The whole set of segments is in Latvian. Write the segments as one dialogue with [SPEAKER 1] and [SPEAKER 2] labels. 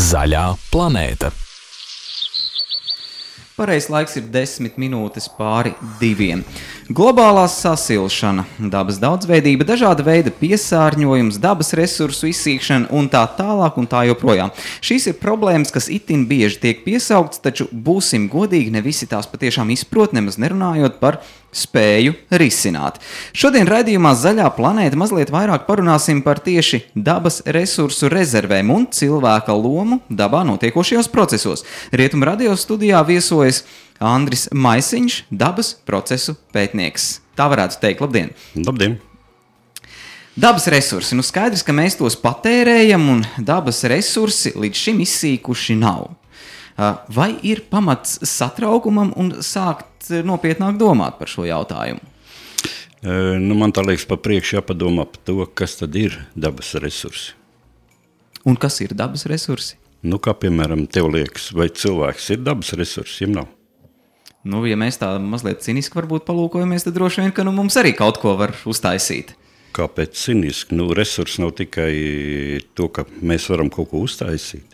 [SPEAKER 1] Zaļā planēta.
[SPEAKER 2] Pareizais laiks ir 10 minūtes pāri 2. Globālā sasilšana, dabas daudzveidība, dažāda veida piesārņojums, dabas resursu izsīkšana un tā tālāk un tā joprojām. Šīs ir problēmas, kas itin bieži tiek piesauktas, taču būsim godīgi, ne visi tās patiešām izprot, nemaz nerunājot par spēju risināt. Šodien raidījumā Zaļā planēta mazliet vairāk parunāsim par tieši dabas resursu rezervēm un cilvēka lomu dabā notiekošajos procesos. Rietumu radio studijā viesojas Andris Maisiņš, dabas procesu pētnieks. Tā varētu teikt. Labdien!
[SPEAKER 3] Labdien!
[SPEAKER 2] Dabas resursi. Skaidrs, ka mēs tos patērējam un dabas resursi līdz šim izsīkuši nav. Vai ir pamats satraukumam un sākt nopietnāk domāt par šo jautājumu?
[SPEAKER 3] Man tā liekas, pa priekšu jāpadomā par to, kas tad ir dabas resursi.
[SPEAKER 2] Un kas ir dabas resursi?
[SPEAKER 3] Kā piemēram, tev liekas, vai cilvēks ir dabas resursi, ja nav?
[SPEAKER 2] Ja mēs tā mazliet ciniski varbūt palūkojamies, tad droši vien, ka mums arī kaut ko var uztaisīt.
[SPEAKER 3] Kāpēc ciniski? Resursi nav tikai to, ka mēs varam kaut ko uztaisīt.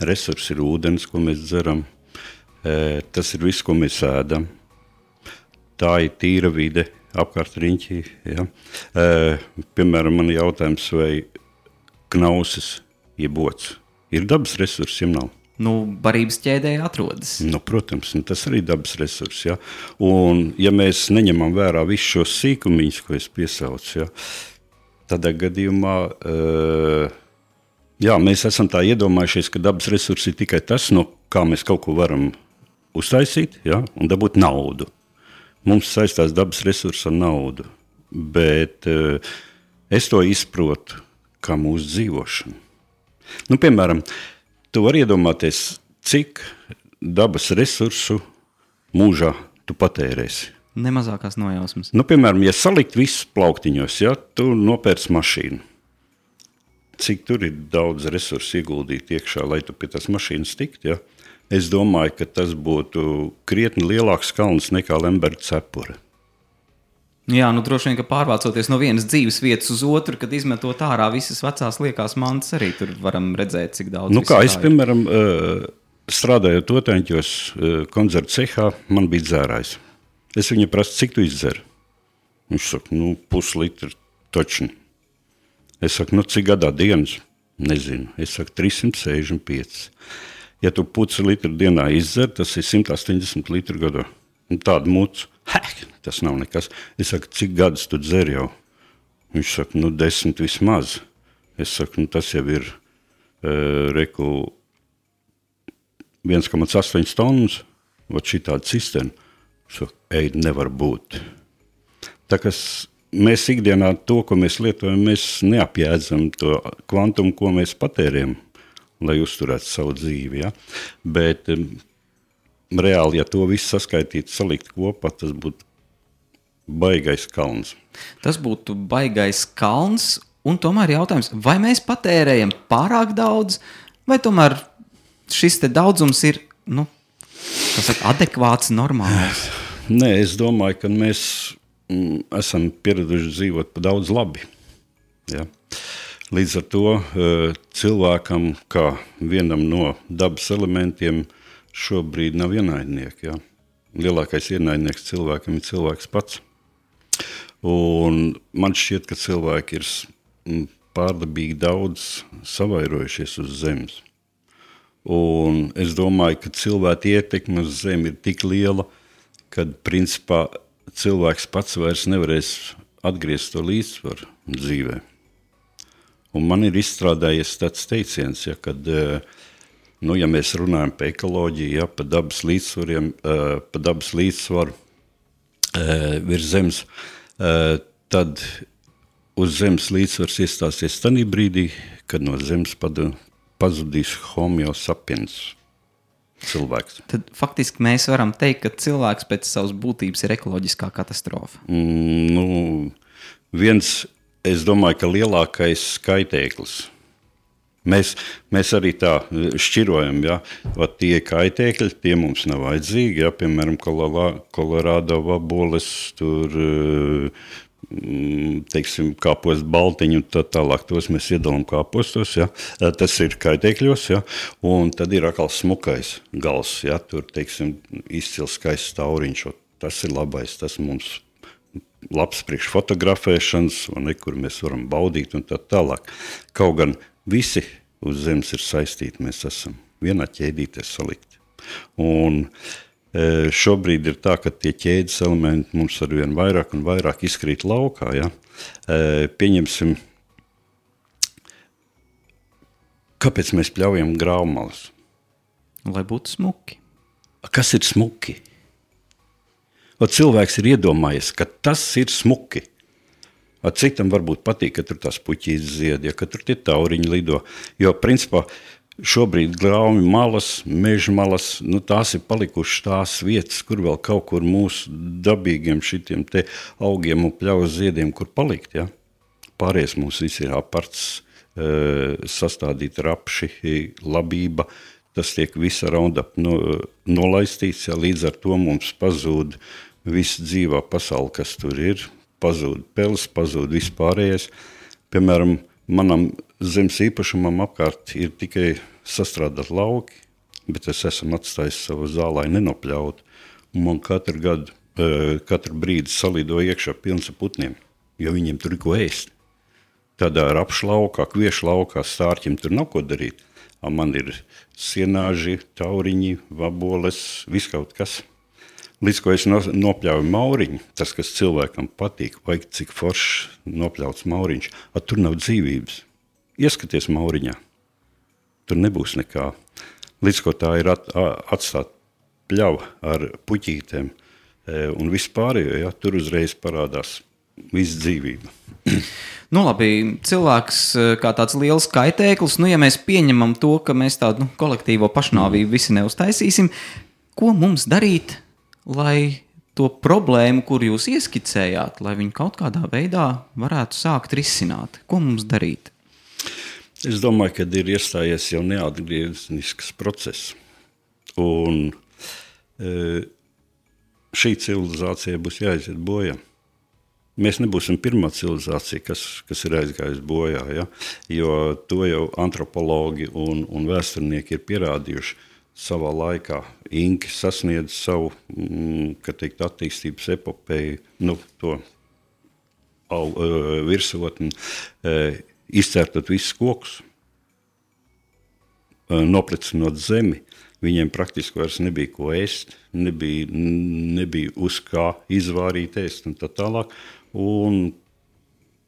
[SPEAKER 3] Resursi ir ūdens, ko mēs dzeram. Tas ir viss, ko mēs ēdam. Tā ir tīra vide apkārt riņķī. Ja? Piemēram, man jautājums, vai knausis, jeb ots, ir dabas resursi, ja nav?
[SPEAKER 2] Barības ķēdē atrodas.
[SPEAKER 3] Protams, tas arī dabas resursi. Ja? Un ja mēs neņemam vērā visus šos sīkumiņus, ko es piesaucu, ja? Tādā gadījumā mēs esam tā iedomājušies, ka dabas resursi ir tikai tas, no kā mēs kaut ko varam uztaisīt, ja? Un dabūt naudu. Mums saistās dabas resursi ar naudu, bet es to izprotu kā mūsu dzīvošanu. Piemēram, tu vari iedomāties, cik dabas resursu mūžā tu patērēsi.
[SPEAKER 2] Nemazākās nojausmas.
[SPEAKER 3] Piemēram, ja salikt visus plauktiņos, ja, tu nopērc mašīnu. Cik tur ir daudz resursu ieguldīt iekšā, lai tu pie tās mašīnas tikt, ja? Es domāju, ka tas būtu krietni lielāks kalns nekā Lemberga cepure.
[SPEAKER 2] Jā, droši vien, ka pārvācoties no vienas dzīves vietas uz otru, kad izmetot ārā visas vecās liekās mantas, arī tur varam redzēt, cik daudz.
[SPEAKER 3] Es, piemēram, strādājot Otaņķos koncertu cehā, man bija dzērājs. Es viņu prasu, cik tu izdzer? Viņš saka, puslitru točni. Es saku, cik gadā dienas? Nezinu. Es saku, 365. Ja tu pusi litru dienā izdzer, tas ir 180 litru gadā. Tādu mucu. Tas nav nekas. Es saku, cik gadus tu dzer jau? Viņš saka, 10 vismaz. Es saku, tas jau ir 1,8 tonnas, šitāda cisterna. Saka, nevar būt. Tā kā mēs ikdienā to, ko mēs lietojam, mēs neapjēdzam to kvantumu, ko mēs patērējam, lai uzturētu savu dzīvi. Ja? Bet reāli, ja to visu saskaitītu, salikt kopā, tas būtu baigais kalns.
[SPEAKER 2] Tas būtu baigais kalns, un tomēr jautājums, vai mēs patērējam pārāk daudz, vai tomēr šis te daudzums ir, adekvāts, normāls?
[SPEAKER 3] Nē, es domāju, ka mēs esam pieraduši dzīvot pa daudz labi. Ja? Līdz ar to cilvēkam, kā vienam no dabas elementiem, šobrīd nav ienaidnieki. Ja? Lielākais ienaidnieks cilvēkam ir cilvēks pats. Un man šķiet, ka cilvēki ir pārdabīgi daudz savairojušies uz zemes. Un es domāju, ka cilvēka ietekme uz zemi ir tik liela, kad principā cilvēks pats vairs nevarēs atgriezt to līdzsvaru dzīvē. Un man ir izstrādājies tāds teiciens, ja, kad, ja mēs runājam par ekoloģiju, ja, par dabas līdzsvariem, par dabas līdzsvaru virs zemes, tad uz zemes līdzsvars iestāsies tanī brīdī, kad no zemes pazudīs homo sapiens cilvēks.
[SPEAKER 2] Tad faktiski mēs varam teikt, ka cilvēks pēc savas būtības ir ekoloģiskā katastrofa.
[SPEAKER 3] Es domāju, ka lielākais skaitēklis. Mēs arī tā šķirojam, ja? Tie kaitēkļi, tie mums nav vajadzīgi, ja? Piemēram, Kolorādo vaboles, tur teiksim, kāpost baltiņu un tā tālāk, tos mēs iedalām kāpostos, ja? Tas ir kaitēkļos, ja? Un tad ir atkal smukais gals, ja? Tur, teiksim, izcils skaists tauriņš, tas ir labais, tas mums labs priekš fotografēšanas, un kur mēs varam baudīt un tā tālāk. Kaut gan visi uz zemes ir saistīti, mēs esam vienā ķēdītē salikti. Un šobrīd ir tā, ka tie ķēdes elementi mums arvien vairāk un vairāk izkrīt laukā. Ja? Pieņemsim, kāpēc mēs pļaujam grāvmalas?
[SPEAKER 2] Lai būtu smuki.
[SPEAKER 3] Kas ir smuki? Cilvēks ir iedomājies, ka tas ir smuki. Citam varbūt patīk, ka tur tās puķītes zied, ja, ka tur tie tauriņi lido. Jo, principā, šobrīd grāvmi malas, meža malas, tās ir palikušas tās vietas, kur vēl kaut kur mūsu dabīgiem šitiem te augiem un pļaus ziediem, kur palikt. Ja? Pārējais mums visi ir aparts, sastādīt rapši, labība, tas tiek visa Roundup nolaistīts, ja? Līdz ar to mums pazūd visa dzīvā pasaule, kas tur ir, pazūd peles, pazūd vispārējais. Piemēram, manam zemes īpašumam apkārt ir tikai sastrādāt lauki, bet es esmu atstājis savu zālai nenopļaut. Un man katru brīdi salido iekšā pilns ar putniem, jo viņiem tur ir ko ēst. Tādā rapšu laukā, kviešu laukā, stārķim tur nav ko darīt. Man ir sienāži, tauriņi, vaboles, viskaut kas. Līdz ko es nopļauju mauriņu, tas, kas cilvēkam patīk, vai cik foršs nopļauts mauriņš, tur nav dzīvības. Ieskaties mauriņā, tur nebūs nekā. Līdz ko tā ir atstāt pļava ar puķītēm un vispārējo, ja, tur uzreiz parādās viss dzīvība.
[SPEAKER 2] Labi, cilvēks kā tāds liels kaitēklis, ja mēs pieņemam to, ka mēs tādu kolektīvo pašnāvību visi neuztaisīsim, ko mums darīt, lai to problēmu, kur jūs ieskicējāt, lai viņu kaut kādā veidā varētu sākt risināt? Ko mums darīt?
[SPEAKER 3] Es domāju, ka ir iestājies jau neatgriezenisks process. Un šī civilizācija būs jāiziet bojā. Mēs nebūsim pirmā civilizācija, kas ir aizgājusi bojā, ja? Jo to jau antropologi un vēsturnieki ir pierādījuši. Savā laikā Inki sasniedz savu, attīstības epopeju, to virsotni, izcērtot visus kokus, noplicinot zemi. Viņiem praktiski vairs nebija ko ēst, nebija uz kā izvārīt ēst un tā tālāk. Un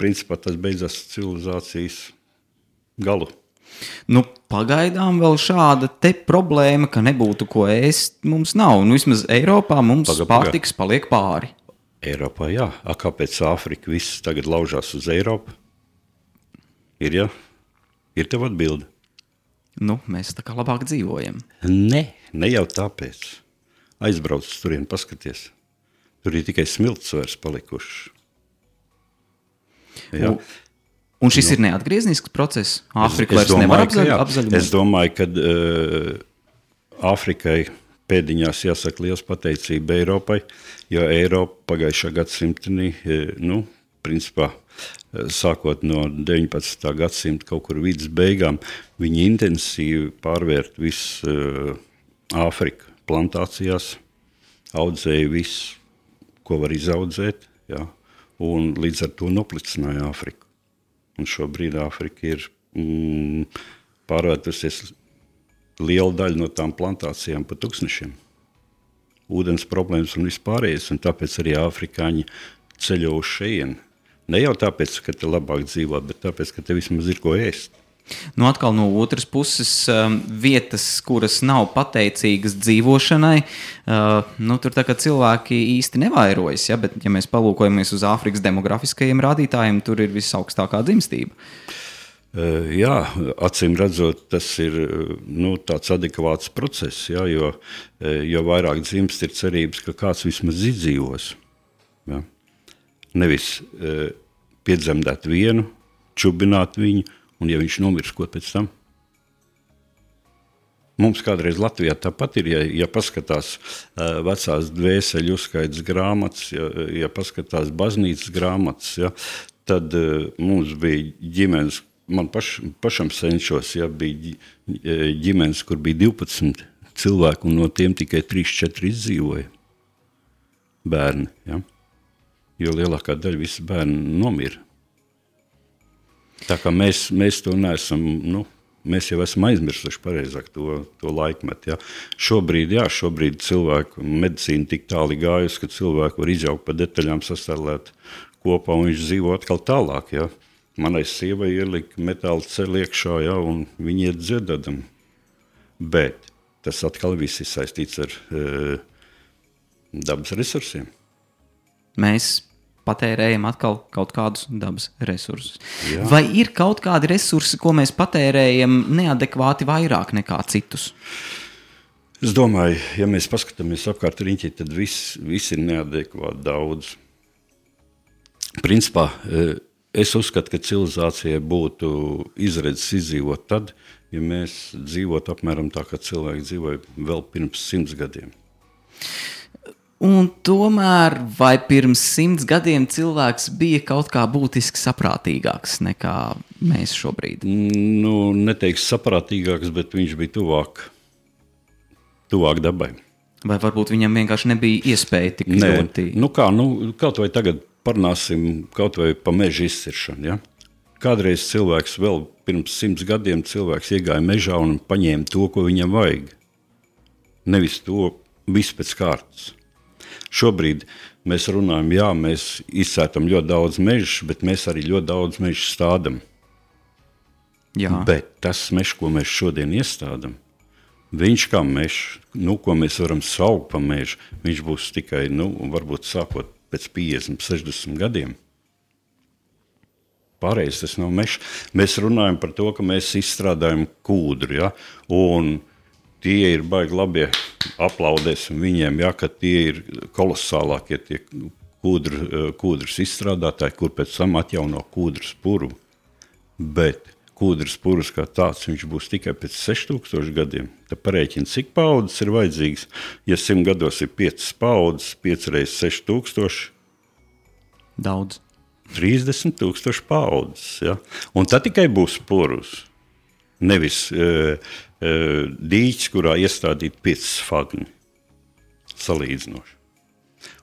[SPEAKER 3] principā tas beidzās civilizācijas galu.
[SPEAKER 2] Pagaidām vēl šāda te problēma, ka nebūtu ko ēst, mums nav. Vismaz Eiropā mums pārtiks paliek pāri.
[SPEAKER 3] Eiropā, jā. Kāpēc Āfrika viss tagad laužās uz Eiropu? Ir, jā? Ir tev atbilde?
[SPEAKER 2] Mēs tā kā labāk dzīvojam.
[SPEAKER 3] Ne jau tāpēc. Aizbrauc turien, paskaties. Tur ir tikai smilts vairs palikušas. Jā.
[SPEAKER 2] Un šis ir neatgriezenisks process? Āfrika vairs nevar apzaļumot?
[SPEAKER 3] Es domāju, ka Āfrikai pēdiņās jāsaka liels pateicība Eiropai, jo Eiropa pagājušā gadsimtenī, principā, sākot no 19. gadsimta kaut kur vidus beigām, viņi intensīvi pārvērt visu Āfriku plantācijās, audzēja visu, ko var izaudzēt, ja, un līdz ar to noplicināja Āfriku. Un šobrīd Āfrika ir pārvērtusies liela daļa no tām plantācijām pa tūkstnešiem. Ūdens problēmas un vispārējais, un tāpēc arī afrikāņi ceļo uz šejieni. Ne jau tāpēc, ka te labāk dzīvot, bet tāpēc, ka te vismaz ir ko ēst.
[SPEAKER 2] Atkal no otras puses, vietas, kuras nav pateicīgas dzīvošanai, tur tā kā cilvēki īsti nevairojas, ja? Bet, ja mēs palūkojamies uz Āfrikas demografiskajiem rādītājiem, tur ir visaugstākā dzimstība.
[SPEAKER 3] Jā, acīm redzot, tas ir tāds adekvāts process, ja? Jo vairāk dzimst ir cerības, ka kāds vismaz izdzīvos. Ja? Nevis piedzemdēt vienu, čubināt viņu, un ja viņš nomirs, ko pēc tam? Mums kādreiz Latvijā tāpat ir, ja paskatās vecās dvēseļu uzskaitas grāmatas, ja paskatās baznīcas grāmatas, ja, tad mums bija ģimenes, man pašam senčos, ja, bija ģimenes, kur bija 12 cilvēku, un no tiem tikai 3-4 izdzīvoja bērni, ja, jo lielākā daļa visi bērni nomira. Tā kā mēs to neesam, mēs jau esam aizmirsuši pareizāk to laikmetu. Ja. Šobrīd cilvēku medicīna tik tāli gājusi, ka cilvēku var izjaukt pa detaļām, sastarlēt kopā un viņš dzīvo atkal tālāk. Ja. Manai sievai ielika metāla ceļu iekšā, ja, un viņi iet dziedādam. Bet tas atkal viss ir saistīts ar dabas resursiem.
[SPEAKER 2] Mēs patērējam atkal kaut kādus dabas resursus. Jā. Vai ir kaut kādi resursi, ko mēs patērējam neadekvāti vairāk nekā citus?
[SPEAKER 3] Es domāju, ja mēs paskatāmies apkārt riņķi, tad viss ir neadekvāti daudz. Principā, es uzskatu, ka civilizācijai būtu izredzes izdzīvot tad, ja mēs dzīvotu apmēram tā, kā cilvēki dzīvoja vēl pirms 100 gadiem.
[SPEAKER 2] Un tomēr, vai pirms 100 gadiem cilvēks bija kaut kā būtiski saprātīgāks nekā mēs šobrīd?
[SPEAKER 3] Neteiks saprātīgāks, bet viņš bija tuvāk dabai.
[SPEAKER 2] Vai varbūt viņam vienkārši nebija iespēja tik ļoti?
[SPEAKER 3] Kaut vai tagad parunāsim kaut vai pa meža izciršanu, ja? Kādreiz cilvēks vēl pirms 100 gadiem cilvēks iegāja mežā un paņēma to, ko viņam vajag. Nevis to visu pēc kārtas. Šobrīd mēs runājam, mēs izcērtam ļoti daudz mežu, bet mēs arī ļoti daudz mežu stādam.
[SPEAKER 2] Jā.
[SPEAKER 3] Bet tas mežs, ko mēs šodien iestādam, viņš kā mežs, ko mēs varam saukt pa mežu, viņš būs tikai, varbūt sākot pēc 50, 60 gadiem. Pārējais tas nav mežs. Mēs runājam par to, ka mēs izstrādājam kūdru, ja, un tie ir baigi labie, aplaudēsim viņiem, ja, ka tie ir kolosālākie tie kūdras izstrādātāji, kur pēc tam atjauno kūdras puru. Bet kūdras purus kā tāds, viņš būs tikai pēc 6000 gadiem. Tad parēķina, cik paudzes ir vajadzīgs. Ja 100 gados ir 5 paudzes, 5 reizes 6000.
[SPEAKER 2] Daudz.
[SPEAKER 3] 30,000 paudzes. Ja? Un tad tikai būs purus. Nevis dīķis, kurā iestādīt 5 sfagni salīdzinoši.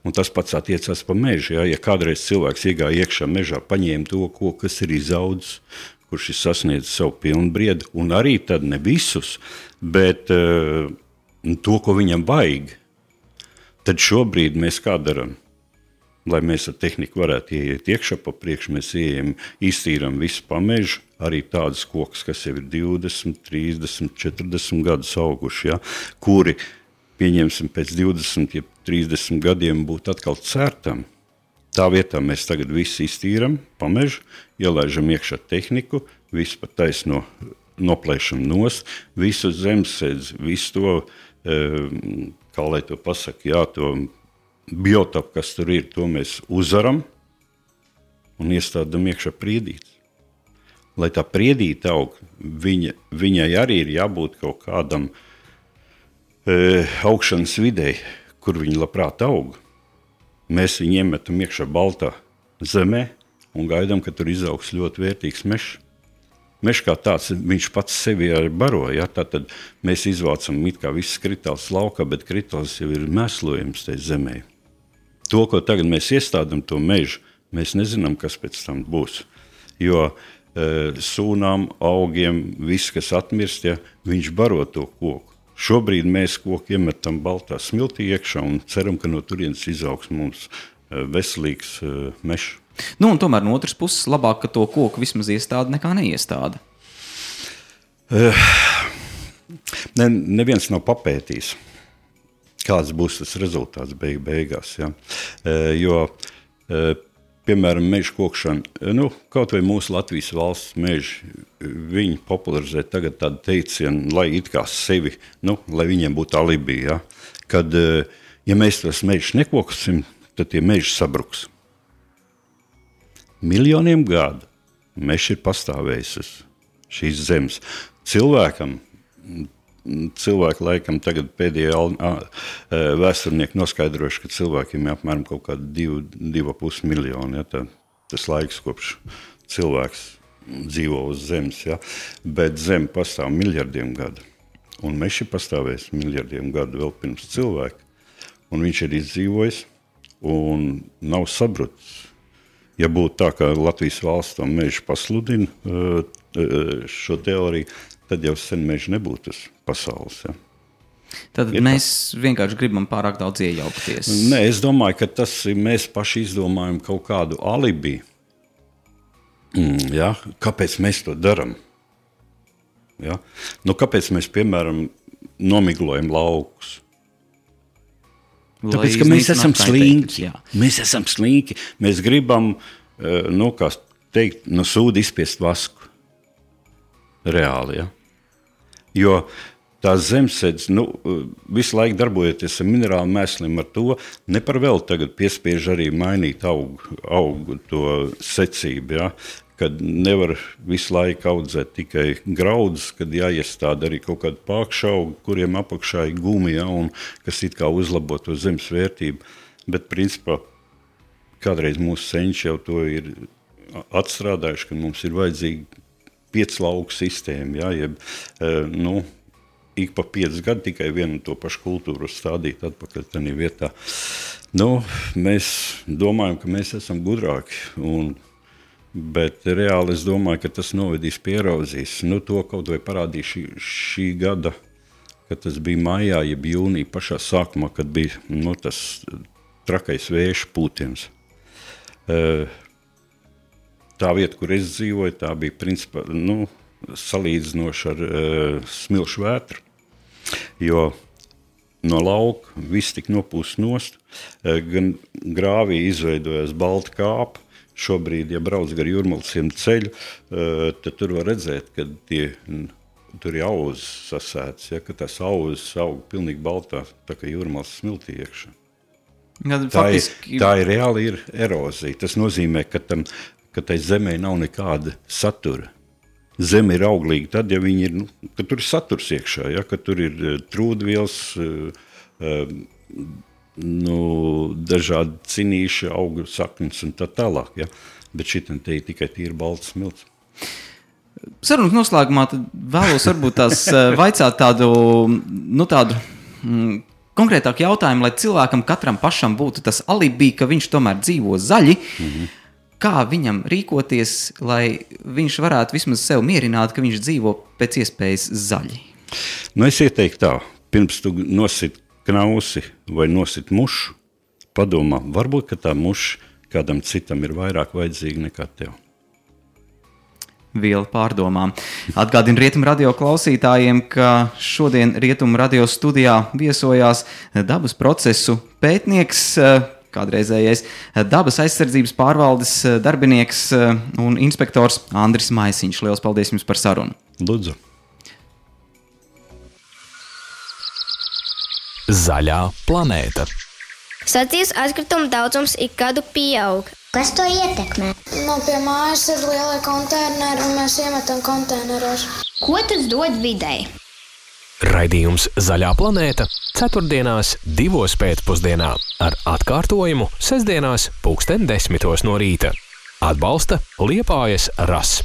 [SPEAKER 3] Un tas pats attiecās pa mežu. Ja kādreiz cilvēks iegāja iekšā mežā, paņēma to, kas ir izaudzis, kurš ir sasniedzis savu pilnbriedu, un arī tad ne visus, bet to, ko viņam vajag, tad šobrīd mēs kā darām? Lai mēs ar tehniku varētu ieiet iekšā pa priekšu, mēs ieejam, iztīram visu pa mežu, arī tādas kokus, kas jau ir 20, 30, 40 gadus auguši, ja, kuri, pieņemsim, pēc 20, 30 gadiem būtu atkal cērtam. Tā vietā mēs tagad visu iztīram pa mežu, ielaižam iekšā tehniku, visu pa taisno noplēšam nost, visu zemesēdz, visu to, kā lai to pasaka, to biotopu, kas tur ir, to mēs uzvaram un iestādam iekšā priedītes. Lai tā priedīte aug, viņai arī ir jābūt kaut kādam augšanas videi, kur viņi labprāt aug. Mēs viņu iemetam iekšā baltā zemē un gaidām, ka tur izaugs ļoti vērtīgs mežs. Mežs kā tāds, viņš pats sevi arī baro, ja? Tātad mēs izvācam it kā visas kritāls laukā, bet kritāls jau ir mēslojums tai zemē. To, ko tagad mēs iestādam to mežu, mēs nezinām, kas pēc tam būs. Jo sūnām, augiem, viss, kas atmirst, ja, viņš baro to koku. Šobrīd mēs koku iemetam baltā smiltī iekšā un ceram, ka no turienes izaugs mums veselīgs mežs.
[SPEAKER 2] Un tomēr no otras puses labāk, ka to koku vismaz iestāda nekā neiestāda.
[SPEAKER 3] Neviens nav papētījis, kāds būs tas rezultāts beigās. Ja? Jo, piemēram, meža kokšana, kaut vai mūsu Latvijas valsts meži, viņi popularizē tagad tādu teicienu, lai it kā sevi, lai viņiem būtu alibi, ja? Kad, ja mēs tos mežus nekoksim, tad tie meži sabruks. Miljoniem gadu mežs ir pastāvējis uz šīs zemes. Cilvēkam cilvēki laikam tagad pēdējie vēsturnieki noskaidrojuši, ka cilvēkiem ir apmēram kaut kādi 2,5 miljoni. Ja, tas laiks, kopš cilvēks dzīvo uz zemes. Ja, bet zeme pastāv miljardiem gadu. Un mežs ir pastāvējis miljardiem gadu vēl pirms cilvēka. Un viņš ir izdzīvojis un nav sabrucis. Ja būtu tā, ka Latvijas valsts to mežu pasludina šo teoriju, tad jau sen meža nebūtu tas pasaules. Ja.
[SPEAKER 2] Tad mēs vienkārši gribam pārāk daudz iejaukties.
[SPEAKER 3] Nē, es domāju, ka tas ir, mēs paši izdomājam kaut kādu alibi. Ja, kāpēc mēs to darām? Ja? Nu, kāpēc mēs, piemēram, nomiglojam laukus? Tāpēc, ka mēs esam slinki. Mēs esam slinki. Mēs gribam, kā teikt, no sūda izspiest vasku. Reāli, ja? Jo tās zemesēdes, visu laiku darbojoties ar minerālu mēsliem, ar to ne par vēl tagad piespiež arī mainīt augu to secību, ja? Kad nevar visu laiku audzēt tikai graudus, kad jāiestāda arī kaut kādu pākšaugu, kuriem apakšā ir gumi, ja, un kas it kā uzlabo to zemes vērtību. Bet, principā, kādreiz mūsu senči jau to ir atstrādājuši, ka mums ir vajadzīga 5 lauku sistēma, ja, jeb, ik pa 5 gadu tikai vienu to pašu kultūru stādīt atpakaļ tādā vietā. Mēs domājam, ka mēs esam gudrāki, bet reāli es domāju, ka tas novedīs pie erozijas. To kaut vai parādīja šī gada, kad tas bija maijā, jeb jūnija pašā sākumā, kad bija tas trakais vēju pūtiens. Tā vieta, kur es dzīvoju, tā bija principā salīdzinoši ar smilšu vētru, jo no lauka viss tik nopūst nost, gan grāvī izveidojās balta kāpa. Šobrīd, ja brauc gar Jūrmalsiem ceļu, tad tur var redzēt, ka tur ir auzas sasētas, ja, ka tās auzas aug pilnīgi baltā, tā kā Jūrmals smiltī iekšā. Tā ir reāli ir erozija. Tas nozīmē, ka tai zemē nav nekāda satura. Zeme ir auglīga tad, ja viņi ir, ka tur ir saturs iekšā, ja, ka tur ir trūdvielas, dažādi cinīši, augu saknes un tā tālāk, ja? Bet šitam te ir tikai tīri balts smilts.
[SPEAKER 2] Sarunas noslēgumā tad vēlos varbūt tās vaicāt tādu konkrētāku jautājumu, lai cilvēkam katram pašam būtu tas alibi, ka viņš tomēr dzīvo zaļi. Kā viņam rīkoties, lai viņš varētu vismaz sev mierināt, ka viņš dzīvo pēc iespējas zaļi?
[SPEAKER 3] Es ieteiktu tā, pirms tu nosit knausi vai nosit mušu, padomā, varbūt, ka tā muša kādam citam ir vairāk vajadzīga nekā tev.
[SPEAKER 2] Viela pārdomām. Atgādinu Rietumu radio klausītājiem, ka šodien Rietumu radio studijā viesojās dabas procesu pētnieks, kādreizējais dabas aizsardzības pārvaldes darbinieks un inspektors Andris Maisiņš. Liels paldies jums par sarunu.
[SPEAKER 3] Lūdzu.
[SPEAKER 1] Zaļā planēta.
[SPEAKER 4] Sacīves atkritumu daudzums ik gadu pieaug.
[SPEAKER 5] Kas to ietekmē?
[SPEAKER 6] Pie mājas ir lielie konteineri un mēs iemetam konteineros.
[SPEAKER 5] Ko tas dod videi?
[SPEAKER 1] Raidījums Zaļā planēta 4. 2. pēcpusdienā ar atkārtojumu 6. 10:00 no rīta. Atbalsta Liepājas RAS.